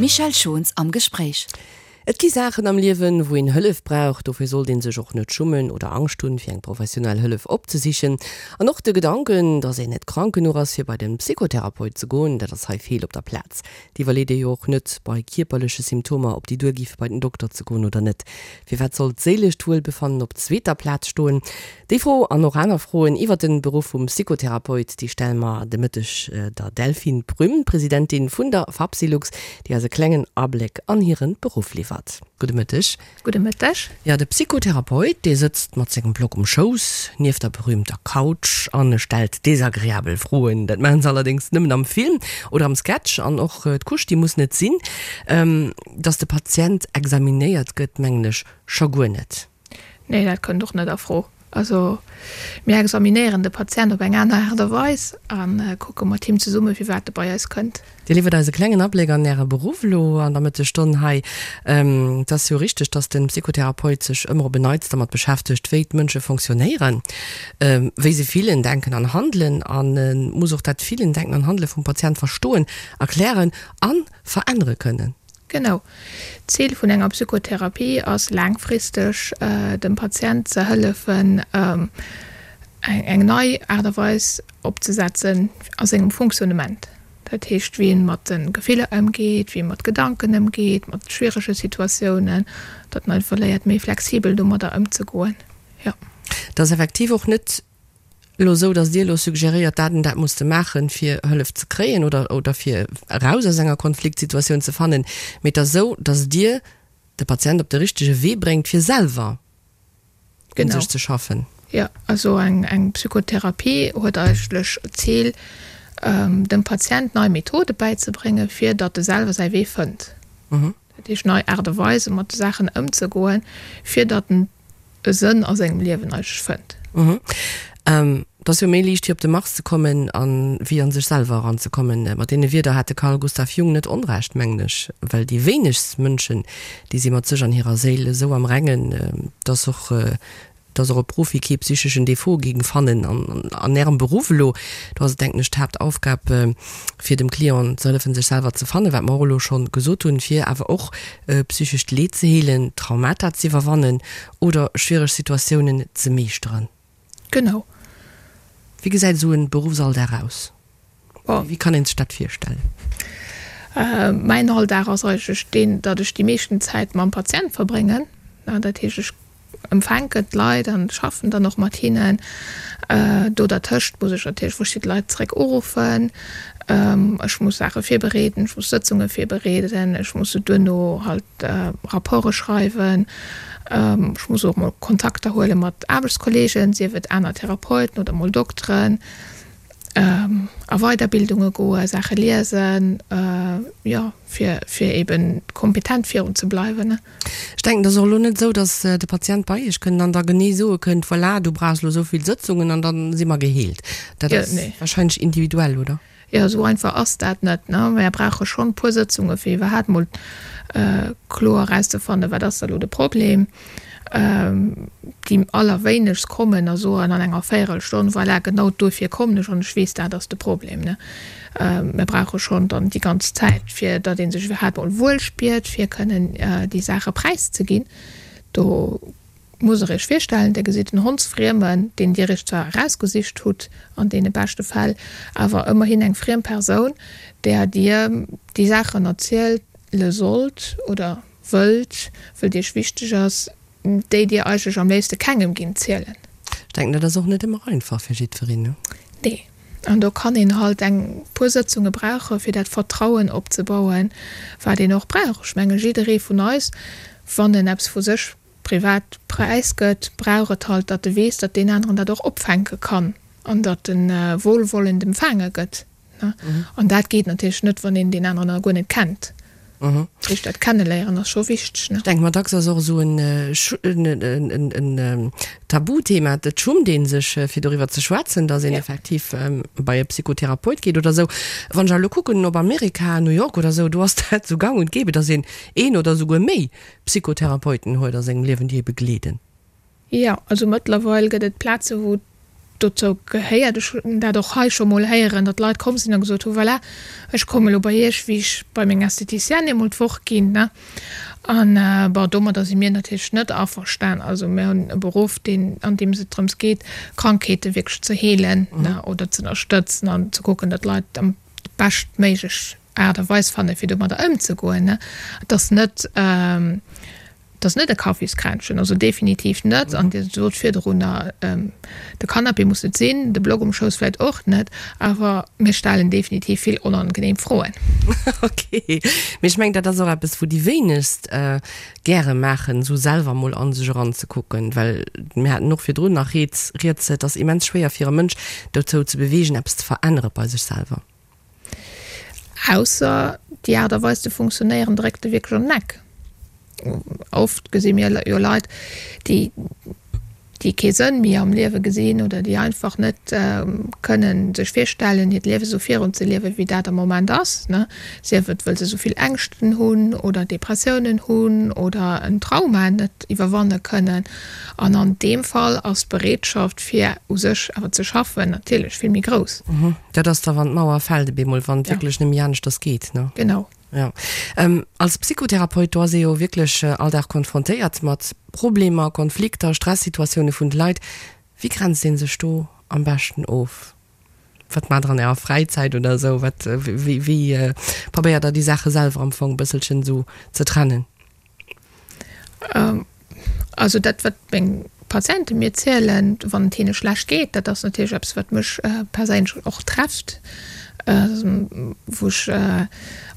Michèle Schons am Gespréich. Et gi Saachen am Liewen, wou een Hëllef brauch. Dofir sollt een sech och net schummen oder Angscht hunn, fir eng professionell Hëllef opzesichen. An och de Gedanken, dass een net krank genuch ass, fir bei de Psychotherapeut ze goen, dat ass hei feel op der Plaz. Et iwwerleet ee jo och net bei kierperleche Symptomer, ob déi duergi fir bei den Dokter ze goen oder net. Firwat soll d'séilescht Wuelbefannen op zweeter Plaz stoen? Déi Fro an och aner Froen iwwer den Beruff vum Psychotherapeut, déi stelle mer de Mëtteg der Delphine Prüm, Presidentin vun der Fapsylux, déi eis e klengen Abléck an hiren Beruff liwwert. Gudde Mëtteg. Gudde Mëtteg. Jo, de Psychotherapeut, dee sëtzt mat sengem Block um Schouss, nieft der berühmter Couch an e stellt desagreabel Froen. Dat maachen se allerdéngs nëmmen am Film oder am Sketch an och d'Couche, déi muss net sinn. Dass de Patient examinéiert gëtt, mengen ech scho guer net. Nee, dat kënnt och net a Fro. Also mir examinéieren de Patient op eng aner Aart a Weis a kucke mat him zesumme firwat e bei eis kënnt. Dir liwwert eis e klengen Abléck an Äre Beruff elo an der Mëttesstonn hei. Et ass jo richteg, dass de Psychotherapeut sech ëmmer op en Neits dermat beschäftegt, wéi d'Mënsche fonctionnéieren, wéi se fillen, denken an handelen a muss och dat Fillen, Denken an Handele vum Patient verstoen, erklären a verännere kënnen. Genau. D'Zil vun enger Psychotherapie ass laangfristeg dem Patient ze hëllefen eng nei Aart a Weis opzesetzen a sengem Fonctionnement. Dat heescht wéi en mat de Gefiller ëmgeet, wéi e mat Gedanken ëmgeet, mat schwierege Situatiounen, datt en einfach léiert méi flexibel domadder ëmzegoen. Jo. Et ass effektiv och net elo esou, datt Dir elo suggeréiert, dat an dat muss de maachen, fir Hëllef ze kréien oder, oder fir eraus aus enger Konfliktsituatioun ze fannen, mee et ass esou, datt Dir de Patient op de richtege Wee bréngt, fir selwer un sech ze schaffen. Jo, also eng, eng Psychotherapie huet eigentlech d'Zil, dem Patient nei Methode bäizebréngen, fir datt e selwer säi Wee fënnt. Dat heescht, nei Aart a Weise mat de Saachen ëmzegoen, fir datt en e Sënn a sengem Liewen eigentlech fënnt. Et ass jo méi liicht fir op de Mars ze kommen an wéi an sech selwer eran ze kommen. Mat deene Wierder hat de Carl Gustav Jung net Onrecht, mengen ech, well déi wéinegst Mënschen, déi si mat sech an hirer Séil esou am Rengen, dass och dass och e Profi kee psycheschen Defaut géing fannen an Ärem Beruff elo. Do ass et, denken ech, d'Haaptaufgab fir dem Client ze hëllefen sech selwer ze fannen, wat mer och elo schonn gesot hunn, fir awer och psychescht Leed ze heelen, Traumata z'iwwerwannen oder schwiereg Situatiounen ze meeschteren. Genau. Wéi gesäit esou en Beruffsalldag aus? Wéi kann een sech dat virstellen? Mäin Alldag ass eigentlech deen, datt ech déi meeschten Zäit mam Patient verbréngen. Dat heescht, ech empfänken d'Leit an schaffen dann och mat hinnen. Do dertëscht muss ech natierlech verschidde Leit zeréck uruffen. Ech muss Saache virbereeden, ech muss Sëtzunge virbereeden, ech muss se duerno halt Rapporte schreiwen. Ech muss och mol Kontakter huele mat Aarbechtskolleegen, sief et aner Therapeuten oder mol Dokteren. A Weiderbildunge goen, Saache liesen, jo, fir fir eben kompetent virun ze bleiwen. Ech denken, et ass och elo net esou, datt de Patient bei Iech kënnt an da genee soe kënnt, voilà, du brauchs elo esou vill Sëtzungen an da si mer geheelt. Dat ass wahrscheinlech individuell, oder? Jo, esou einfach ass dat net. Mär brauche schonn e puer Sëtzunge fir iwwerhaapt mol kloer erauszefannen, wat ass da elo de Problem. Déi allerwéinegst kommen a soen an enger Véierelstonn, voilà, genau duerfir kommen ech an ech weess, dat ass de Problem. Mir brauche schonn dann déi ganz Zäit, fir datt ee sech iwwerhaapt mol wuel spiert, fir kënnen déi Saache präiszeginn. Do musst Der Iech virstellen, Dir gesitt en Hondsfriemen, deen Dir Iech zwar erausgesicht hutt, an deene beschte Fäll, awer ëmmerhin eng friem Persoun, där Dir déi Saachen erziele sollt oder wëllt, wëllt Iech wichteg ass, déi Dir eigentlech am léifste kengem gingt zielen. Ech denken, dat ass och net ëmmer einfach fir jiddwereen, ne? Nee. An do kann een halt eng puer Sëtzunge brauchen, fir dat Vertrauen opzebauen, wat een och brauch. Ech menge jidderee vun eis, wann en eppes vu sech privat präisgëtt, brauch et halt, datt e weess, datt deen aneren dat och opfänke kann an datt e wohlwollend empfaange gëtt. An dat geet natierlech net, wann een deen aneren nach guer net kennt. Dat heescht, dat Kenneléieren ass scho wichteg. Ech denke mer, dacks ass och esou en Tabuthema, et schummt ee sech, fir doriwwer ze schwätzen, datt een effektiv bei e Psychotherapeut geet oder esou. Wann ech awer elo kucken op Amerika, New York oder esou, do ass dat esou gang und gäbe, datt een een oder esouguer méi Psychotherapeuten huet a sengem Liewen, déi ee begleeden. Jo, also mëttlerweil gëtt et Plaze wou. Dozou gehéiert, ech hunn dat och hei scho mol héieren, datt Leit komm sinn a gesot hu, Voilà, ech komme elo bei Iech, wéi ech bei meng Esthéticienne eemol d'Woch ginn. An bon, domadder si mir natierlech net averstan. Also mir hunn e Beruff, deen, an deem et drëms geet, Krankheete wierklech ze heelen oder ze ënnerstëtzen an ze kucken, datt d'Leit am beschtméiglech Aart a Weis fannen, fir domadder ëmzegoen. Et ass net. Et ass net e Kaffiskränzchen, also definitiv net. An Dir sot virdrunner, de Canapé muss net sinn, de Block um Schouss vläicht och net, awer mir stellen definitiv vill onangenehm Froen. Ok, mee ech mengen, dat ass och eppes, wou déi wéinegst gäre maachen, esou selwer mol a sech eranzekucken, well mir haten och virdrun nach rieds, et ass immens schwéier fir e Mënsch dozou ze beweegen, eppes ze verännere bei sech selwer. Ausser déi Aart a Weis ze funktionéieren dréckt e wierklech an den Eck. Oft gesi mir jo Leit, déi déi kee Sënn méi am Liewe gesinn oder déi einfach net kënnen sech virstellen, hiert Liewe sou virun ze liewen, wéi dat am Moment ass, ne, sief et wëll se sou vill Ängschten hunn oder Depressiounen hunn oder en Trauma net iwwerwanne kënnen. An an deem Fall ass d'Bereetschaft fir u sech awer ze schaffen natierlech vill méi grouss. Dat ass da wann d'Mauer fält, op eemol, wann et wierklech net méi aneschters geet, ne? Genau. Jo. Als Psychotherapeut, do ass ee jo wierklech all Dag konfrontéiert mat Problemer, Konflikter, Stressituatioune vun de Leit. Wéi grenzt ee sech do am beschten of? Wat maacht der an ärer Fräizäit oder esou? Wat, wéi, wéi probéiert der déi Saache selwer am Fong e bësselchen esou ze trennen? Also dat, wat meng Patiente mir zielen, wann et hinne schlecht geet, dat ass natierlech eppes, wat mech perséinlech och trefft, wou ech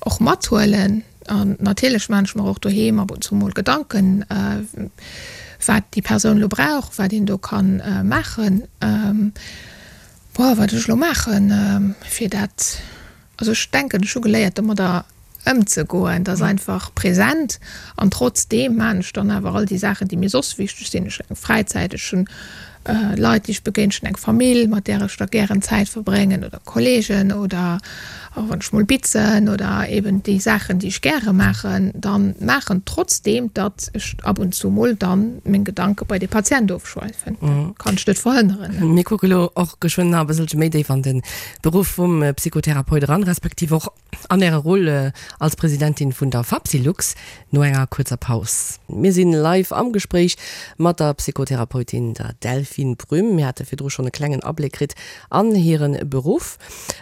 och mathuelen. An natierlech maachen ech mer och doheem ab und zu mol Gedanken, wat déi Persoun elo brauch, wat een do ka maachen. Boah, wat ech elo maachen, fir dat. Also ech denken, ech hu geléiert domadder ëmzegoen, dat ass einfach present an trotzdeem maan ech dann awer all déi Saachen, déi mir soss wichteg sinn. Ech hunn eng Fräizäit, ech hunn Leit, déi ech begéinen, ech hunn eng Famill, mat där ech da gären Zäit verbréngen oder Kollegen oder och wann ech mol bitzen oder eben déi Saachen, déi ech gäre maachen, dann maachen, trotzdeem datt ech ab und zu mol dann meng Gedanke bei de Patient ofschweifen. Dat kann ech net verhënneren. Mir kucke lo och geschwënn nach e bësselche méi déif an de Beruff vum Psychotherapeut eran, respektiv och an Äre Rôle als Presidentin vun der Fapsylux, no enger kuerzer Paus. Mir sinn live am Gespréich mat der Psychotherapeutin, der Delphine Brüm. Mir hate virdru schonn e klengen Abléck kritt an hire Beruff.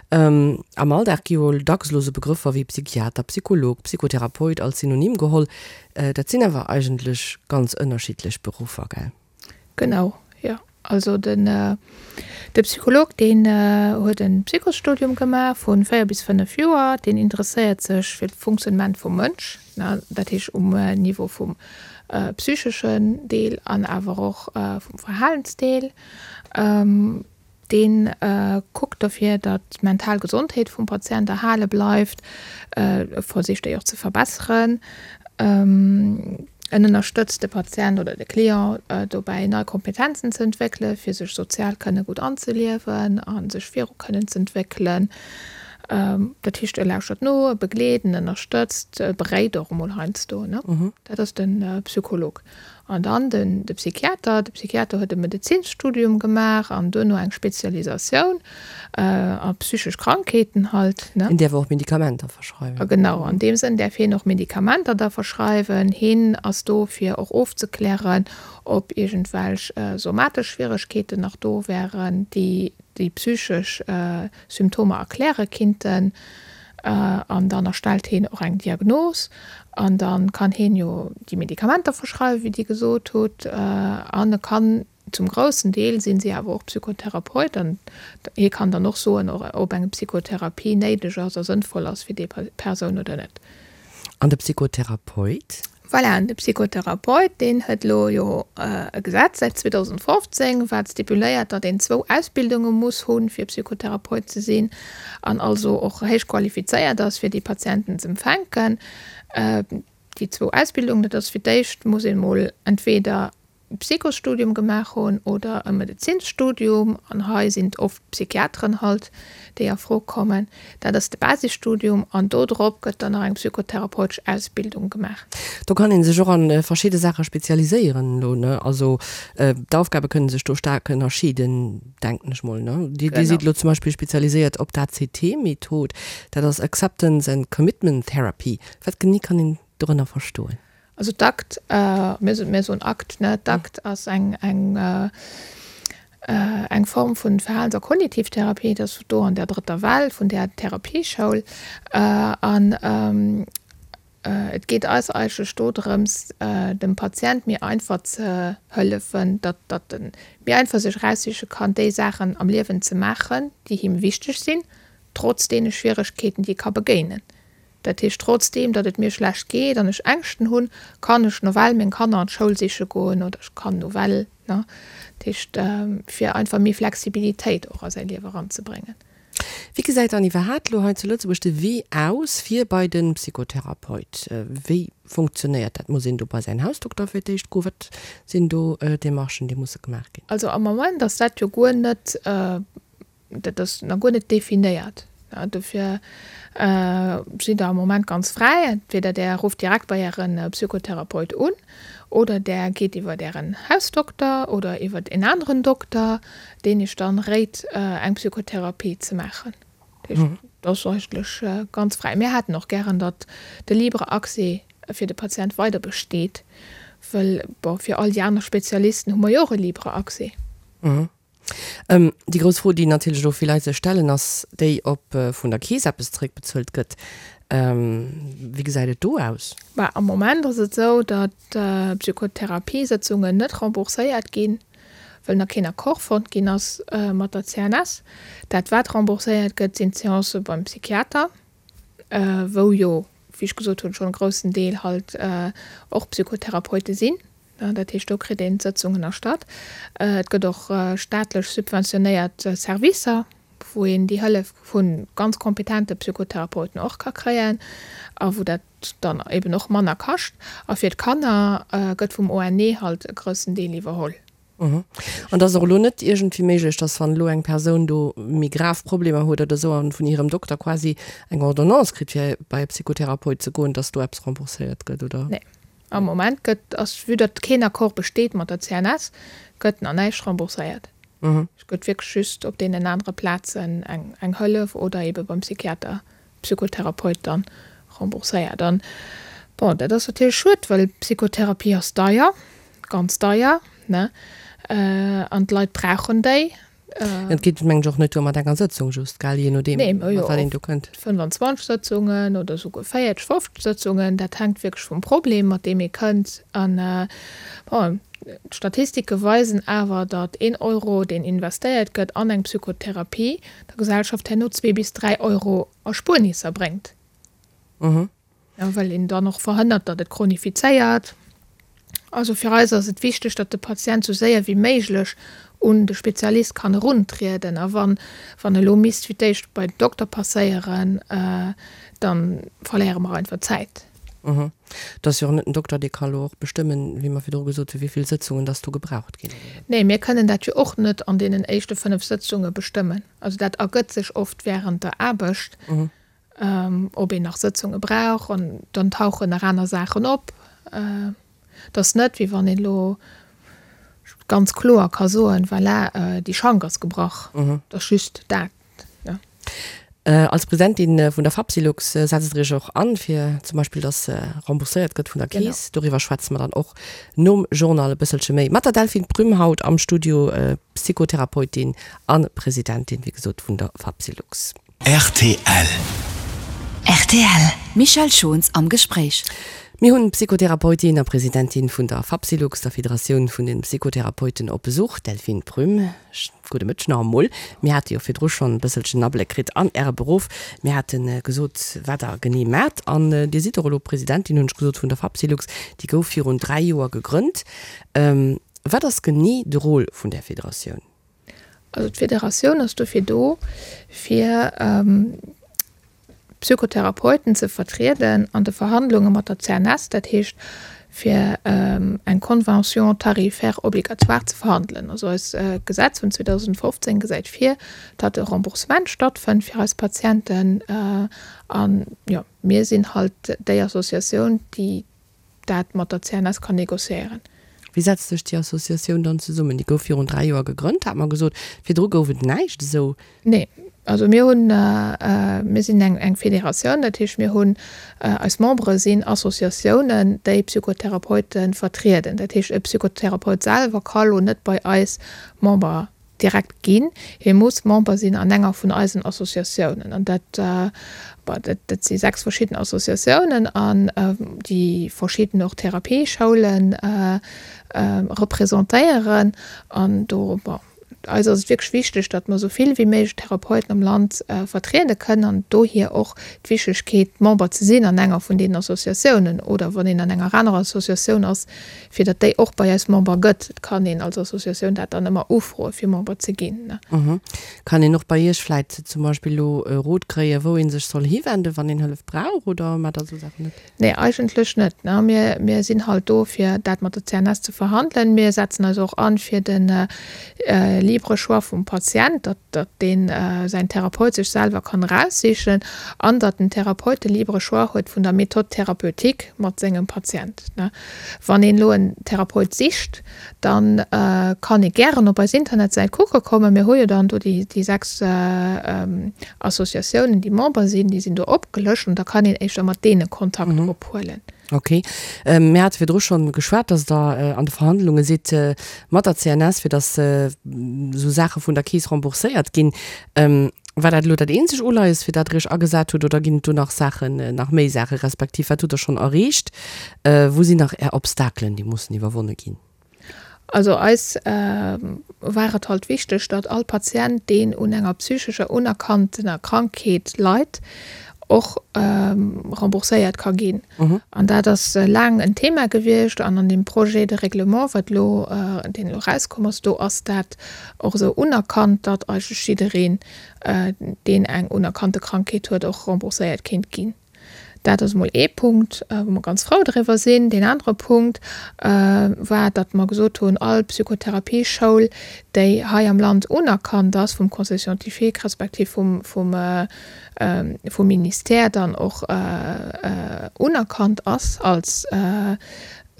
Am Alldag gi jo dacks elo sou Begrëffer wéi Psychiater, Psycholog, Psychotherapeut als Synonym geholl. Dat sinn awer eigentlech ganz ënnerschiddlech Beruffer, gell? Genau, jo. Also den de Psycholog, deen huet e Psychosstudium gemaach vu 4 bis 5 Joer. Deen interesséiert sech fir d'Funktionnement vum Mënsch, dat heescht um Niveau vum psycheschen Deel an awer och vum Verhalensdeel. Dee kuckt dofir, datt d'mental Gesondheet vum Patient erhale bleift, e versicht déi och ze verbesseren. En ënnerstëtzt de Patient oder de Client dobäi, nei Kompetenzen ze entwéckelen, fir sech sozial kënne gutt anzeliewen a sech viru kënnen z'entwéckelen. Dat heescht, e lauschtert no, e begleet, en ënnerstëtzt, e beréit och emol heiansdo. Dat ass de Psycholog. An dann den de Psychiater. De Psychiater huet e Medezinsstudium gemaach an duerno eng Spezialisatioun a psychesch Krankheeten halt, ne. Hien däerf och Medikamenter verschreiwen. Genau, an deem Sënn däerf hien och Medikamenter da verschreiwen. Hien ass do fir och ofzeklären, ob iergendwelch somatesch Schwieregkeeten nach do wären, déi déi psychesch Symptomer erkläre kinnten. An dann erstellt heen och eng Diagnos an da kann heen jo déi Medikamenter verschreiwen, wéi Dir gesot hutt. An e kann, zum groussen Deel sinn si awer och Psychotherapeut an hie kann dann och soen, ob eng Psychotherapie néideg ass a sënnvoll ass fir déi Persoun oder net. An de Psychotherapeut? Voilà, an de Psychotherapeut, deen huet elo jo e Gesetz säit 2015, wat stipuléiert, datt een zwou Ausbildunge muss hunn, fir Psychotherapeut ze sinn, an also och héich qualifizéiert ass, fir déi Patienten z'empfänken. Déi zwou Ausbildungen, dat ass fir d'éischt muss een emol entweder. Psychosstudium gemaach hunn oder e Medezinsstudium, an hei sinn et oft Psychiateren halt, déi a Fro kommen. Dat ass de Basisstudium an do drop gëtt dann nach eng psychotherapeutesch Ausbildung gemaach. Do kann ee sech och a verschidde Saache spezialiséieren elo, ne? Also d'Aufgabe kënne sech do staark ënnerscheeden, denken ech mol, ne? Dir sidd elo zum Beispill spezialiséiert op d'ACT-Method, dat ass Acceptance and Commitment Therapy. Wat genee kann een dorënner verstoen? Also d'ACT, mir soen ACT, ne? D'ACT ass eng, eng, eng Form vun Verhalens a Kognitivtherapie, dat ass do an der drëtter Well vun där Therapieschoul. An et geet eis eigentlech do drëms, dem Patient méi einfach ze hëllefen, datt, datt e méi einfach sech eraussiche kann, déi Saachen am Liewen ze maachen, déi him wichteg sinn, trotz deene Schwieregkeeten, déi e ka begéinen. Dat heescht, trotzdeem datt et mir schlecht geet an ech Ängschten hunn, kann ech nawell meng Kanner an d'Schoul siche goen oder ech kann nawell, ne? Dat heescht, fir einfach méi Flexibilitéit och a säi Liewe eranzebréngen. Wéi gesäit dann iwwerhaapt elo hei zu Lëtzebuerg de Wee aus fir bei de Psychotherapeut? Wéi funktionéiert dat? Muss een do bei säin Hausdokter fir d'éischt goen? Wat sinn do Demarchen, déi musse gemaach ginn? Also am Moment ass dat jo guer net Dat ass nach guer net definéiert. Dofir sidd Der am Moment ganz fräi. Entweder Der rufft direkt bei Äre Psychotherapeut un oder Der geet iwwer Ären Hausdokter oder iwwer en aneren Dokter, deen Iech dann réit, eng Psychotherapie ze maachen. Dat heescht, dat ass eigentlech ganz fräi. Mir hätten och gären, datt de libre Accès fir de Patient weider besteet, wëll, bon, fir all déi aner Spezialisten hu mer jo och e libre Accès. Déi grouss Fro, déi natierlech elo vill Leit sech stellen, ass déi, ob vun der Keess eppes zeréckbezuelt gëtt. Wéi gesäit et do aus? Bah, am Moment ass et esou, datt d'Psychotherapiesëtzungen net rembourséiert ginn, wëll nach keen Accord fonnt ginn ass mat der CNS. Dat wat rembourséiert gëtt, sinn d'Seancë beim Psychiater, wou jo, wéi ech gesot hunn, schonn e groussen Deel halt och Psychotherapeute sinn. Dat heescht, do kritt een d'Sëtzungen erstatt. Et gëtt och staatlech subventionéiert Servicer, wou een déi Hëllef vu ganz kompetente Psychotherapeuten och ka kréien a wou dat dann eben och manner kascht. A fir d'Kanner gëtt vum ONE halt e groussen Deel iwwerholl. An et ass och elo net iergendwéi méiglech, dass wann elo eng Persoun do méi grav Problemer huet oder esou an vun hirem Dokter quasi eng Ordonnance kritt, fir bei e Psychotherapeut ze goen, dass do eppes rembourséiert gëtt, oder? Nee. Am Moment gëtt, ass, vue datt keen Accord besteet mat der CNS, gëtt nach näischt rembourséiert. Et gëtt wierklech just op deenen anere Plazen eng, eng Hëllef oder eebe beim Psychiater, Psychotherapeut dann rembourséiert. An, bon, dat ass natierlech schued, well Psychotherapie ass deier, ganz deier, ne, an d'Leit brauchen déi. Et geet mengen ech och net duer mat enger Sëtzung just, gell, jee nodeem mat wat een do kënnt. 25 Sëtzungen oder esouguer 40, 50 Sëtzungen, dat hänkt wierklech vum Problem, mat deem ee kënnt. An bon, d'Statistike weisen awer, datt een Euro, deen investéiert gëtt an eng Psychotherapie, der Gesellschaft herno zwee bis dräi Euro Erspuernisser bréngt. Well een dann och verhënnert, datt et chronifizéiert. Also fir eis ass et wichteg, datt de Patient esou séier wéi méiglech un de Spezialist kann eruntrieden. A wann wann elo misst fir d'éischt bei den Dokter passéieren, da verléiere mer einfach Zäit. Et ass jo och net den Dokter, dee ka elo och bestëmmen, wéi mer virdru gesot hunn, wéi vill Sëtzungen datt do gebraucht ginn. Nee, mir kënnen dat jo och net an deenen éischte 5 Sëtzunge bestëmmen. Also dat ergëtt sech oft während der Aarbecht. ob een nach Sëtzunge brauch an dann tauchen nach aner Saachen op. Et ass net, wéi wann een elo ganz kloer ka soen, voilà, déi Schank ass gebrach. Et ass just dat. Als Presidentin vun der Fapsylux setzt Der Iech och an, fir zum Beispill, dass rembourséiert gëtt vun der Keess. Doriwwer schwätze mer dann och nom Journal e bësselche méi mat der Delphine Prüm haut am Studio, Psychotherapeutin a Presidentin, wéi gesot, vun der Fapsylux. Rtl. Rtl, Michèle Schons am Gespréich. Mir hunn d'Psychotherapeutin a Presidentin vun der Fapsylux, der Federatioun vun den Psychotherapeuten, op Besuch, d'Delphine Prüm. Gudde Mëtteg nach emol. Mir hate jo virdru schonn e bësselchen Abléck kritt an Äre Beruff. Mir hate gesot, wat Der genee maacht. An Dir sidd och elo Presidentin, hunn ech gesot, vun der Fapsylux. Déi gouf virun 3 Joer gegrënnt. Wat ass genee de Rôle vun där Federatioun? Also d'Federatioun ass dofir do, fir d'Psychotherapeuten ze vertrieden an de Verhandlunge mat der CNS. Dat heescht, fir eng Convention tarifaire obligatoire ze verhandelen. Also eist Gesetz vun 2015 gesäit vir, datt e Remboursement stattfënnt fir eis Patienten. An, jo, mir sinn halt déi Associatioun, déi dat mat der CNS kann négociéieren. Wéi setzt sech déi Associatioun dann zesummen? Déi gouf virun 3 Joer gegrënnt, hat mer gesot. Virdru gouf et näischt esou. Nee, also mir hunn, mir sinn eng eng Federatioun, dat heescht mir hunn, eis Membere sinn Associatiounen, déi Psychotherapeute vertrieden. Dat heescht e Psychotherapeut selwer ka lo net bei eis Member direkt ginn. Hie muss Member sinn an enger vun eisen Associatiounen. An dat, bon, dat, dat si 6 verschidden Associatiounen an déi verschidden och Therapieschoulen representéieren. An do, bon, eis ass et wierklech wichteg, datt mer esou vill wéi méiglech Therapeuten am Land vertriede kënnen an dohier och d'Wichtegkeet, Member ze sinn an enger vun deenen Associatiounen oder wann een an enger anerer Associatioun ass, fir datt déi och bei eis Member gëtt. Et kann een als Associatioun dat dann ëmmer ufroe fir Member ze ginn. Kann een och bei Iech vläit zum Beispill elo e Rot kréien, wou ee sech soll hiwenden, wann een Hëllef brauch, oder maacht Der esou Saachen net? Nee, eigentlech net. Mir, mir sinn halt do, fir dat mat der CNS ze verhandelen. Mir setzen eis och an fir de libre Choix vum Patient, datt, datt deen säin Therapeut sech selwer kann eraussichen an datt den Therapeut de libre Choix huet vun der Méthode thérapeutique mat sengem Patient. Wann een elo en Therapeut sicht, dann kann ee gären op eis Internetsäit kucke kommen. Mir hu jo dann do déi 6 Associatiounen, déi Member sinn, déi sinn do opgelëscht an da kann een éischter mat deene Kontakt ophuelen. Ok. Mir hate virdru schonn geschwat, dass Der an de Verhandlunge sidd mat der CNS, fir dass esou Saache vun der Keess rembourséiert ginn. War dat elo dat eenzeg Uleies, fir dat Der Iech agesat hutt, oder ginn et do nach Saachen, nach méi Saache respektiv wat hutt Der schonn erreecht? Wou sinn nach Är Obstakelen, déi mussen iwwerwonne ginn? Also eis war et halt wichteg, datt all Patient, deen un enger psychescher unerkanntener Krankheet leit, och rembourséiert ka ginn. An dat ass laang en Thema gewiescht an an deem Projet de règlement, wat elo, deen elo erauskomm ass, do ass dat och esou unerkannt, datt eigentlech jiddereen, deen eng unerkannte Krankheet huet, och rembourséiert kéint ginn. Dat ass emol ee Punkt, wou mer ganz frou driwwer sinn. Deen anere Punkt war, datt mer gesot hunn, all Psychotherapieschoul, déi hei am Land unerkannt ass vum Conseil scientifique respektiv vum, vum, vum Ministère dann och unerkannt ass als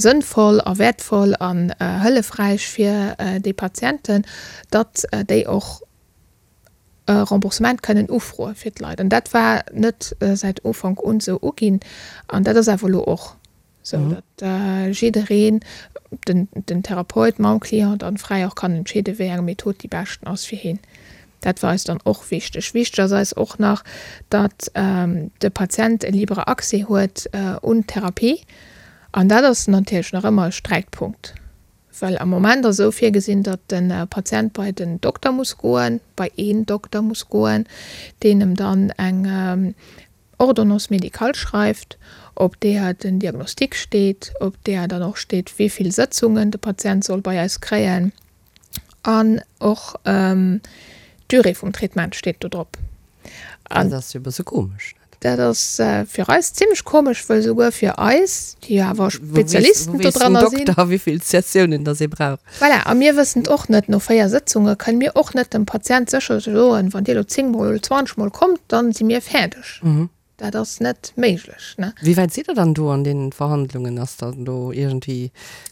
sënnvoll a wäertvoll an hëllefräich fir déi Patienten, datt déi och e Remboursement kënnen ufroe fir d'Leit. An dat war net säit Ufank un esou uginn. An dat ass awer elo och esou, datt jiddereen, den, den Therapeut mam Client dann fräi och kann entscheeden, wéi eng Method déi beschten ass fir hien. Dat war eis dann och wichteg. Wichteg ass eis och nach, datt de Patient e libre Accès huet un d'Therapie. An dat ass natierlech nach ëmmer e Sträitpunkt. Well am Moment ass esou virgesinn, datt de Patient bei den Dokter muss goen, bei een Dokter muss goen, deen em dann eng Ordonnance médicale schreift, op deeër den Diagnostic steet, op deeër dann och steet, wéi vill Sëtzungen de Patient soll bei eis kréien an och d'Durée vum Traitement steet do drop. Dat ass jo e bësse komesch, net? Dat ass fir eis zimlech komesch, wëll souguer fir eis, déi jo awer Spezialisten do dranner sinn. Wou weess den Dokter, wéi vill Sessiounen dass ee brauch? Voilà, a mir wëssen et och net. No 4 Sëtzunge kënne mir och net dem Patient sécher soen, wann Dir elo 10 mol oder 20 mol kommt, dann si mir fäerdeg. Dat ass net méiglech, ne? Wéi wäit sidd Der dann do an deenen Verhandlungen? Ass dann do iergendwéi,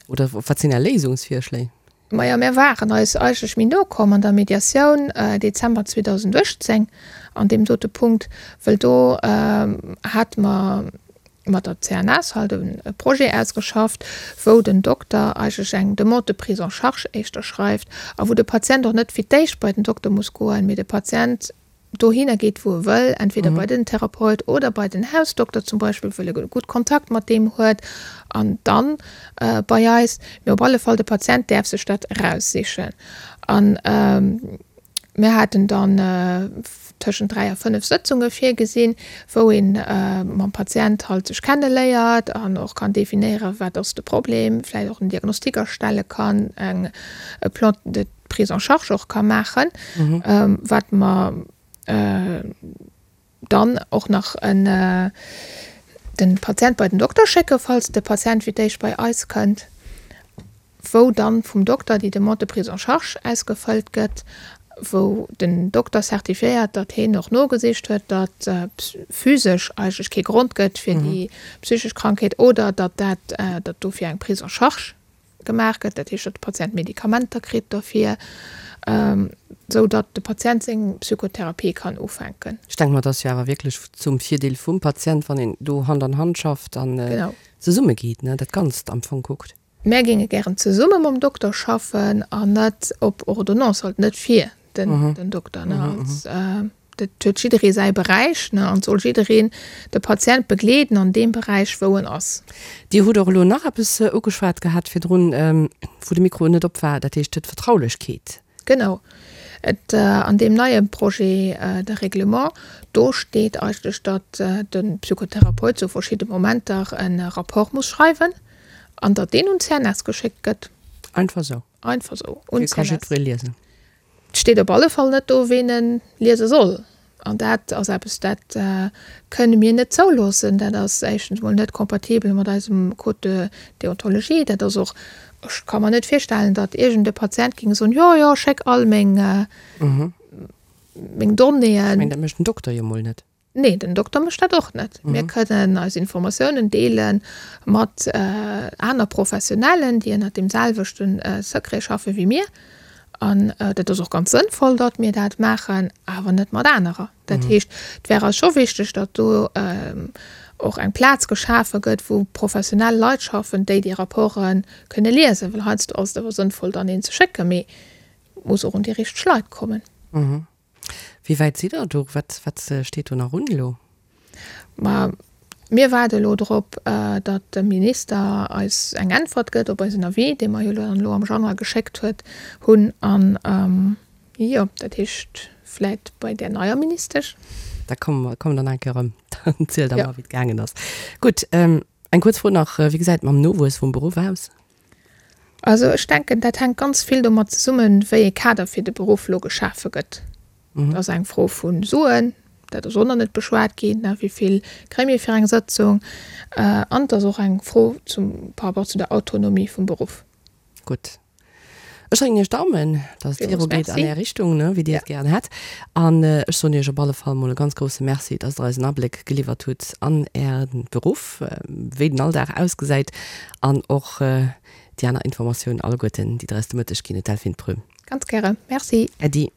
oder wat sinn Är Léisungsvirschléi? Majo, mär waren eis eigentlech méi no komm an der Mediatioun Dezember 2018 an deem dote Punkt, wëll do hate mer mat der CNS halt e Projet ausgeschafft, wou den Dokter eigentlech eng Demande de prise en charge éischter schreift a wou de Patient och net fir d'éischt bei den Dokter muss goen, mee de Patient dohinner geet wou e wëll, entweder bei den Therapeut oder bei den Hausdokter zum Beispill, wëll e gutt Kontakt mat deem huet an dann bei eis. Mee op alle Fall de Patient däerf sech dat eraussichen. An mir haten dann tëschent 3 a 5 Sëtzunge virgesinn, wou ee mam Patient halt sech kenneléiert an och kann definéieren, wat ass de Problem, vläicht och en Diagnostic erstelle kann, eng e Plan de Prise en charge och ka maachen, wat mer dann och nach en. De Patient bei den Dokter schécke falls de Patient fir d'éischt bei eis kënnt, wou dann vum Dokter déi Demande de prise en charge ausgefëllt gëtt, wou den Dokter certifiéiert, datt heen och nogesicht huet, datt physesch eigentlech kee Grond gëtt fir déi psychesch Krankheet oder datt dat, datt dofir eng Prise en charge gemaach gëtt, dat heescht, datt de Patient Medikamenter kritt dofir, esou datt de Patient seng Psychotherapie kann ufänken. Ech denke mer, et ass jo awer wierklech zum Virdeel vum Patient, wann een do Hand an Hand schafft an zesummegeet, ne, dat Ganzt am Fong kuckt. Mär géinge gären zesumme mam Dokter schaffen an net op Ordonnance, halt net fir den Dokter. Dat huet jidderee säi Beräich an et soll jiddereen de Patient begleeden an deem Beräich, wou en ass. Dir hutt och elo nach eppes ugeschwat gehat virdrun, wou de Mikro net op war, dat heescht d'Vertraulechkeet. Genau. Et, an deem neie Projet de règlement, do steet eigentlech, datt de Psychotherapeut zu verschidde Momenter e Rapport muss schreiwen an datt deen un d'CNS geschéckt gëtt. Einfach esou? Einfach esou, un d'CNS. Dee ka jiddweree liesen? Et steet op alle Fall net do, ween e liese soll. An dat ass eppes, dat kënne mir net zouloossen. Dat ass éischtens emol net kompatibel mat eisem Code de déontologie. Dat ass och, ech ka mer net virstellen, datt iergend e Patient géing soen, jo, jo, schéck all meng, meng Donnéeën. Ech mengen, dat mécht den Dokter jo mol net. Nee, den Dokter mécht dat och net. Mir kënnen eis Informatiounen deele mat aner Professionellen, déi ënnert deem selwechte Secret schaffe wéi mir. An dat ass och ganz sënnvoll, datt mir dat maachen, awer net mat anerer. Dat heescht, et wär eis scho wichteg, datt do och eng Plaz geschafe gëtt, wou professionell Leit schaffen, déi déi Rapporte kënne liesen. Well heiansdo ass et awer sënnvoll, dann een ze schécken, mee et muss och un déi richteg Leit kommen. Wéi wäit sidd Der do? Wat, wat steet do nach un elo? Ma mir waarde elo drop, datt de Minister eis eng Äntwert gëtt op eisen Avis, dee mer jo dann elo am Januar geschéckt huet, hunn. An, jo, dat heescht vläit bei där neier Ministesch. Da komme mer, komme der nach eng Kéier erëm. Dann zielt Der mer, wéi et gaangen ass. Gutt, eng kuerz Fro nach, Wéi gesäit et mam Nowuess vum Beruff aus? Also ech denken, dat hänkt ganz vill domat zesummen, wéi e Kader fir de Beruff elo geschafe gëtt. Dat ass eng Fro vu Suen, dat ass och nach net beschwat ginn, wéi vill kréie mir fir eng Sëtzung. An et ass och eng Fro zum, par rapport zu der Autonomie vum Beruff. Gutt. Ech drécken Iech d'Daumen, dass et virugeet an Är Richtung, wéi Dir et gären hätt. An ech soen Iech op alle Fall mol e ganz grousse Merci, dass Der eis en Abléck geliwwert hutt an Äre Beruff, wéi den Alldag ausgesäit an och déi aner Informatiounen alleguerten, déi Der eis de Mëtteg ginn hutt, Delphine Prüm. Ganz gäre. Merci. Äddi.